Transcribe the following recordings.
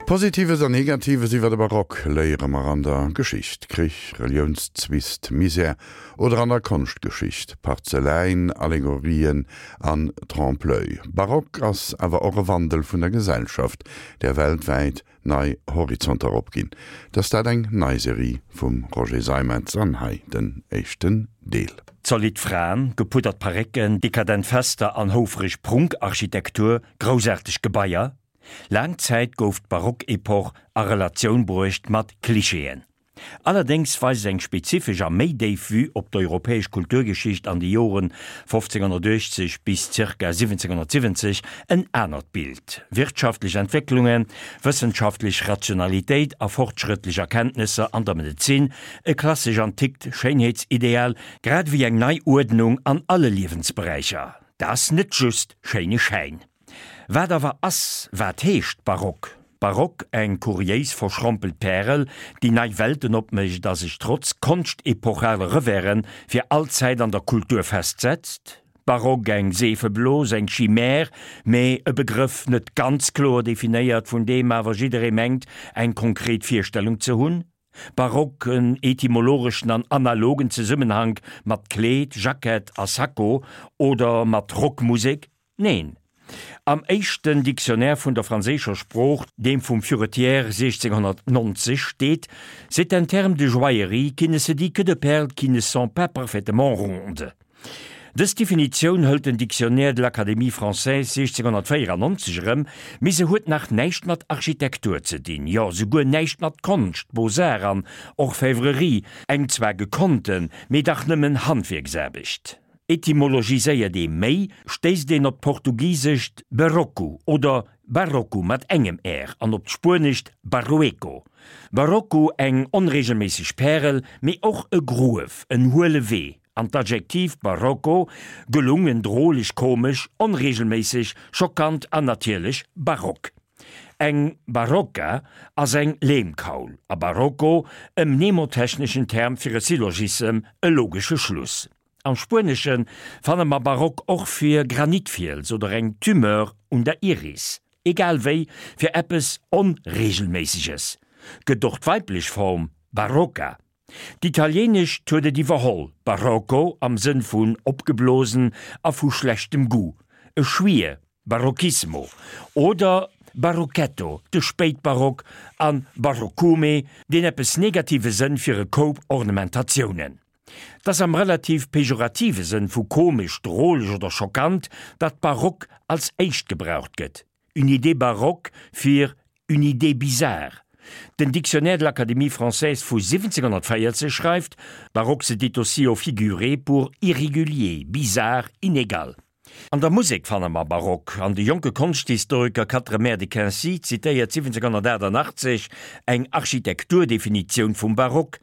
Positives an Negatives iwwer de Barock léiere mer an der Geschicht, Krich, Reliounszwist, Misär, oder an der Konschtgeschicht, Parzeläin, Allegorien an Trompe-l'oeil. Barock ass awer och e Wandel vun der Gesellschaft, där weltwäit nei Horizonter opginn. Dass dat eng nei Serie vum Roger Seimetz an hei den éischten Deel. Zolidd Fraen, gepuddert Parécken, dekadent Fester an houfreg Prunkarchitektur, groussaarteg Gebaier. Laang Zäit gouf d'Barockepoch a Relatioun bruecht mat Klischeeën. Allerdéngs weist eng spezifesch a méi déif Vue op d'europäesch Kulturgeschicht an de Joren 1580 bis zirka 1770 en anert Bild, Wirtschaftlech Entwécklungen, wëssenschaftlech Rationalitéit a fortschrëttlech Erkenntnesser an der Medezin, e klassesch-antikt Schéinheetsideal, grad ewéi eng nei Uerdnung an alle Liewensberäicher. Dat ass net just schéine Schäin. Wat awer ass, wat heescht Barock? Barock, eng kuriéis verschrompelt Pärel, déi nei Welten opmécht a sech trotz konschtepochale Reversen fir all Zäit an der Kultur festsetzt? Barock, eng Seefeblos, eng Chimère, mee e Begrëff net ganz kloer definéiert, vun deem awer jidderee mengt, eng konkret Virstellung ze hunn? Barock, en etymologeschen an analogen Zesummenhank mat Kleed, Jackett a Sakko oder mat Rockmusek? Neen. Am éischten Dictionnaire vun der franséischer Sprooch, deem vum Furetière 1690, steet, C'est un terme de joaillerie qui ne se dit que de perles qui ne sont pas parfaitement rondes. Dës Definitioun hëlt den Dictionnaire de l'Académie française 1694 erëm, mee se huet nach näischt mat Architektur ze dinn, jo souguer näischt mat Konscht, Beaux-Arts an Orfèvrerie, eng zwar gekonnten, mee dach nëmmen Handwierksaarbecht. Etymologiséiert ee méi, stéisst een op d'portugisescht berroco oder barroco mat engem r an op d'spuenescht barrueco. Barocco, eng onreegelméisseg Pärel, mee och e Gruef, en huele Wee, an d'Adjektiv barocco, gelungen, droleg, komesch, onreegelméisseg, schockant an natierlech barock. Eng Barocca ass eng Leemkaul, a barocco e mnemotechneschen Term fir e Syllogissem, e logesche Schluss. Am Spuenesche fanne mer Barock och fir Granitfiels oder eng Tumeur un der Iris. Egal wéi, fir eppes Onreegelméisseges gëtt och d'weiblech Form Barocca. D'Italieenescht huet et iwwerholl, Barocco am Sënn vun opgeblosen a vu schlechtem Goût, e Schwier, Barocchismo, oder Barocchetto, de Spéitbarock, an Baroccume, deen eppes negative Sënn fir e Koup Ornementatiounen. 't ass am relativ pejorative Sënn vu komesch, droleg oder schockant, datt barock als éischt gebraucht gëtt, une idée baroque fir une idée bizarre. Den Dictionnaire de l'Académie française vu 1740 schreift, Baroque se dit aussi au figuré pour irrégulier, bizarre, inégal. An der Musek fanne mer Barock, an de jonke Konschthistoriker Quatremère de Quincy zitéiert 1788 eng Architekturdefinitioun vum Barock,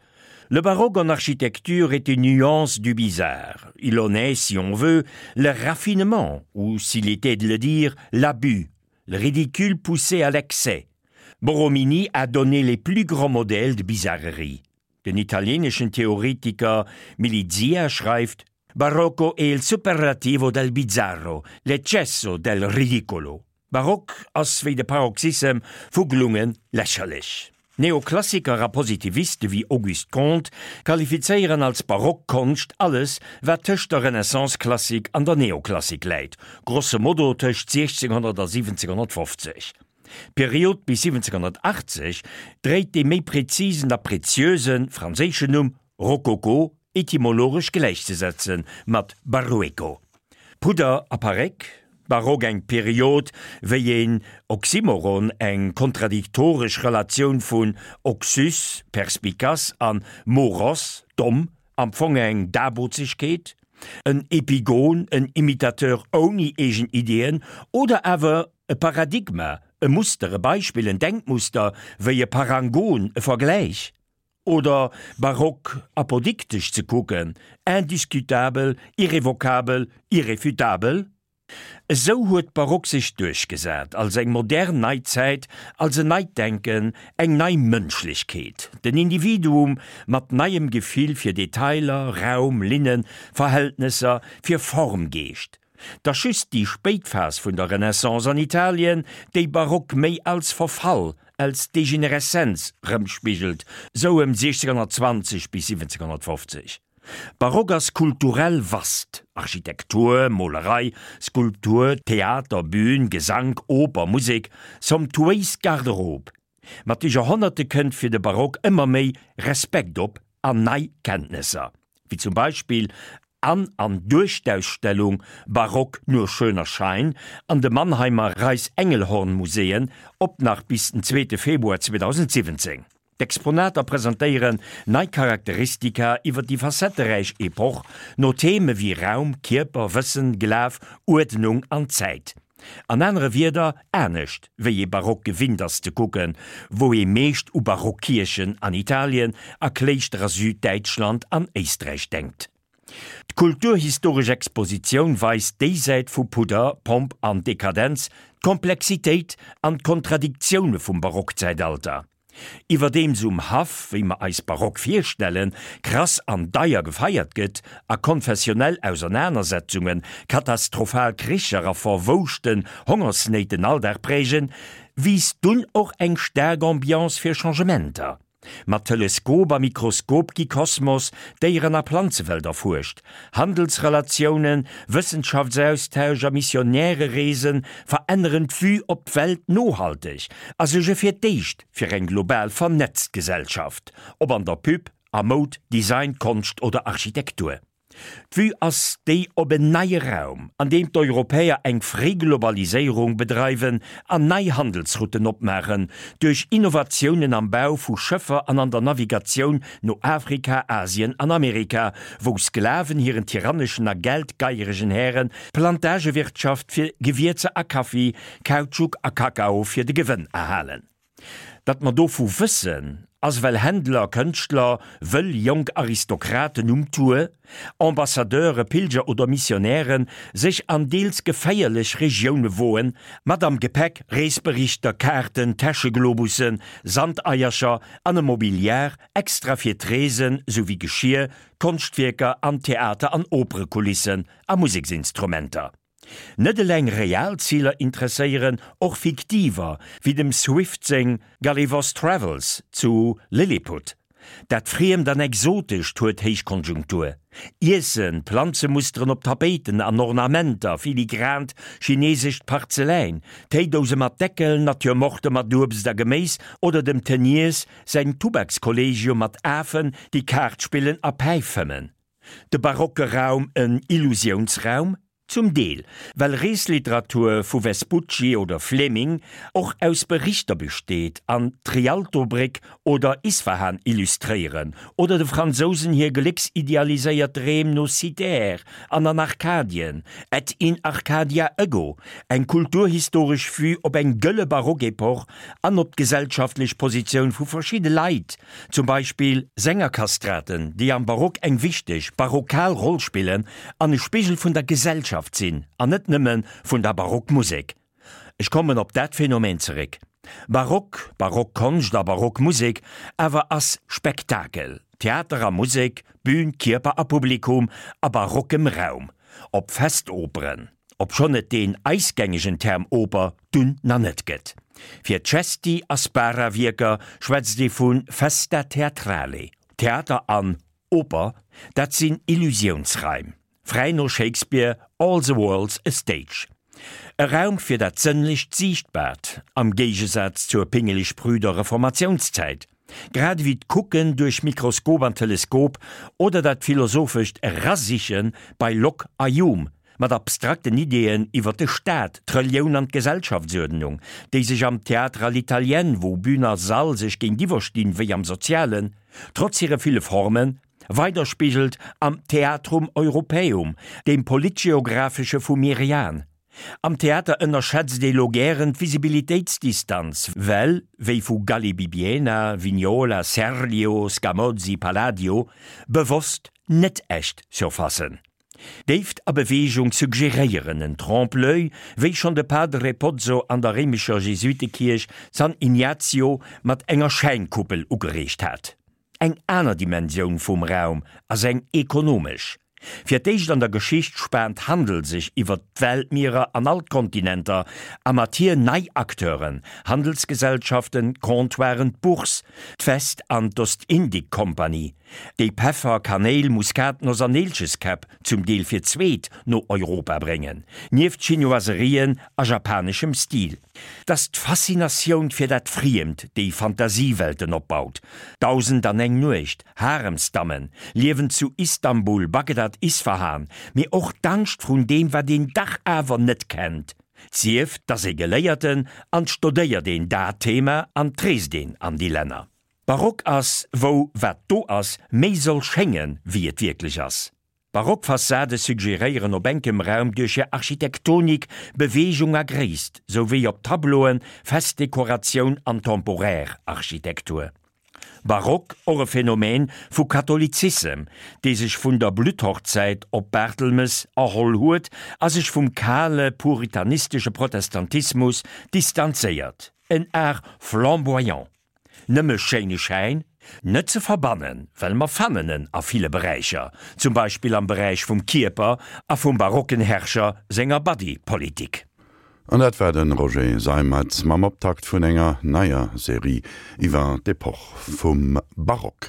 Le baroque en architecture est une nuance du bizarre. Il en est, si on veut, le raffinement, ou, s'il était de le dire, l'abus, le ridicule poussé à l'excès. Borromini a donné les plus grands modèles de bizarrerie. Den italienischen Theoretiker Milizia schreift, Barocco è il superlativo del bizzarro, l'eccesso del ridicolo. Barock ass wéi de Paroxyssem vu gelunge lächerlech. Neoklassiker a Positiviste wéi Auguste Comte qualifizéieren als barock Konscht alles, wat tëscht der Renaissance-Klassik an der Neoklassik läit, grosso modo tëscht 1600 a 1750. D'Period bis 1780 dréit dee méi prezisen a preziöse franséischen Numm Rokoko, etymologesch gläichzesetze mat Barrueco. Pudder a Paréck, Barock eng Period wéi een Oxymoron, eng kontradiktoresch Relatioun vun oxys, perspicace, an moros, domm, am Fong eng Dabozegkeet, en Epigon, en Imitateur ouni eegen Ideeën, oder awer e Paradigma, e Muster, e Beispill, en Denkmuster, wéi e Parangon, e Vergläich. Oder barock apodiktesch ze kucken, indiscutabel, irrevocabel, irrefutabel? Esou huet d'Barock sech duerchgesat als eng modern nei Zäit, als en neit Denken, eng nei Mënschlechkeet, den Individuum mat neiem Gefill fir Detailer, Raum, Linnen, Verhältnesser, fir Formgeescht. 't ass just déi spéit Phas vun der Renaissance an Italien, déi Barock méi als Verfall. als Degenereszenz rëmspigelt, sou ëm 1620 bis 1750. Barock ass kulturell vast, Architektur, Molerei, Skulptur, Theater, Bühn, Gesank, Oper, Musek, somptuéis Garderobe. Mat de Joerhonnerte kënnt fir de Barock ëmmer méi Respekt op an nei Kenntnesser, wéi zum Beispill an an duerch d'Ausstellung Barock nur schöner Schein an de Mannheimer Reiss-Engelhorn-Muséeën, op nach bis den zweete Februar 2017. D'Exponater presentéieren nei Charakteristika iwwer déi facetteräich Epoch, no Theme wéi Raum, Kierper, Wëssen, Glaf, Uerdnung an Zäit. An anere Wierder, anescht wéi ee Barock gewinnt ass ze kucken, wou ee meescht u Barockkierchen an Italien a Kléischter a Süddäitschland an Éisträich denkt. D'kulturhistoresch Expositioun weist déi Säit vu Pudder, Pomp an Dekadenz, d'Komplexitéit an d'Kontradiktioune vum Barockzäitalter. Iwwerdeems um Haff, wéi mer eis Barock virstellen, krass an deier gefeiert gëtt a konfessionell Ausernanersetzungen, katastrophal Kricher a verwouschten Hongersnéit den Alldag prägen, wiisst dunn och eng staark Ambiance fir Changementer. Mat Teleskop a Mikroskop gi Kosmos, Déieren a Planzewelt erfuerscht, Handelsrelatiounen, Wëssenschaftsaustausch a Missionärereese veränneren d'Vue op d'Welt nohalteg a suerge fir d'éischt fir eng global vernetzt Gesellschaft, ob an der Pub, a Moud, Design, Konscht oder Architektur. D'Vue ass déi op en neie Raum, an deem d'Europäer eng fréi Globaliséierung bedreiwen an nei Handelsrouten opmaachen, duerch Innovatiounen am Bau vu Schëffer an an der Navigatioun no Afrika, Asien an Amerika, wou Sklaven hiren tyranneschen a geldgeieregen Hären d'Plantagewirtschaft fir Gewierzer a Kaffi, Kautschuk a Kakao fir de Gewënn erhalen. Datt mer dovu wëssen, ass well Händler, Kënschtler, wëll jonk Aristokraten um Tour, Ambassadeure, Pilger oder Missionären sech an deels geféierlech Regioune woen, mat am Gepäck Reesberichter, Kaarten, Täscheglobussen, Sandeiercher an e Mobiliar extra fir d'Reesen, souwéi Geschir, Konschtwierker an Theater an Operekulissen a Museksinstrumenter. Net eleng real Ziler interesséieren, och fiktiver, wéi dem Swift seng Gulliver's Travels zu Lilliput. Dat Friemt an Exotescht huet Héichkonjunktur. Iessen, Planzemusteren op Tapéiten an Ornamenter, filigrant chinesescht Parzeläin, Téidouse mat Deckel, Naturemorte mat Uebst a Geméis oder dem Teniers säin Tubakskollegium mat Afen, déi Kaart spillen a Päif fëmmen. De barocke Raum en Illusiounsraum? Zum Deel, well Reesliteratur vu Vespucci oder Fleming och aus Berichter besteet an d'Rialtobréck oder Isfahan illustréieren oder de Fransousen hir glécksidealiséiert Dreem no Cythère an an Arkadien, Et in Arcadia ego, eng kulturhistoresch Vue op eng gëlle Barockepoch an op d'gesellschaftlech Positioun vu verschidde Leit, Zum Beispill Sängerkastraten, déi am Barock eng wichteg barockal Roll spillen an e Spigel vun der Gesellschaft sinn an net nëmme vun der Barockmusek. Ech kommen op dat Phänomen zeréck. Barock, Barockkonscht a Barockmusek awer ass Spektakel, Theater a Musek, Bühn, Kierper a Publikum a barockem Raum, op Festoperen. Obschonn et deen eis gängegen Term Oper dunn na net gëtt. Fir Cesti a Spara-Wierker schwätzt ee vu Festa teatrale. Theater an Oper, dat sinn Illusiounsraim, fräi no Shakespeare, All the world's a stage. E Raum fir dat sënnlecht Siichtbaart, am Géigesaz zur pingeleg-prüder Reformatiounszäit. Grad ewéi d'Kucken duerch Mikroskop an Teleskop oder dat philosophescht Erasiche bei Locke a Hume mat abstrakten Ideeën iwwer de Staat, d'Relioun an d'Gesellschaftsuerdnung, déi sech am Théâtre à l'italienne, wou Bühn a Sall sech géintiwwer stinn, wéi am Sozialen, trotz hire ville Formen, weiderspigelt am Theatrum Europaeum, deem politgeographesche vu Merian. Am Theater ënnerschätzt ee lo gären d'Visibilitéitsdistanz, well, wéi vu Galli-Bibbiena, Vignola, Serlio, Scamozzi, Palladio, bewosst net echt Surfacen. Déift a Beweegung suggeréieren en Trompe-l'oeil, wéi schonn de Padre Pozzo an der réimescher Jesuitekierch San Ignazio mat enger Schäinkuppel ugereegt hat. Eng aner Dimensioun vum Raum ass eng ekonomesch. Fir d'éischt an der Geschicht spaant Handel sech iwwer d'Weltmierer an all d'Kontinenter a mat hir nei Acteuren, Handelsgesellschaften, Comptoiren, d'Bourse, d'West an d'Ostindikkompanie, déi Peffer, Kanéil, Muskatnoss an Neelcheskäpp zum Deel fir d'zweet no Europa bréngen, nieft Chinoiserien a japaneschem Stil. 't ass d'Faszinatioun fir dat Friemt, déi Fantasiewelten opbaut. Dausend an eng Nuecht, Haremsdammen, Liewen zu Istanbul, Bagdad, Isfahan, mee och d'Angscht vrun deem, wat een dach awer net kennt. 't sief, 't ass ee Geléierten an 't stodéiert een dat Thema an 't reest een an déi Länner. Barock ass, wou wat do ass, méi soll schéngen, wéi et wierklech ass. Barock Fassade suggeréieren op enkem Raum duerch hir Architektonik Beweegung a Gréisst, sou wéi op Tableauen Festdekoratioun an temporär Architektur. Barock, och e Phänomen vu Katholizissem, dee sech vun der Blutthochzäit op Bartelmes erholl huet a sech vum kale puritanistesche Protestantismus distanzéiert, en Art flamboyant. Nëmme schéine Schäin? Net ze verbannen, well mer fannen en a ville Beräicher, zum Beispill am Beräich vum Kierper a vum barocken Herrscher senger Body-Politik. An dat war de Roger Seimetz mam Optakt vun enger neier Serie iwwer d'Epoch vum Barock.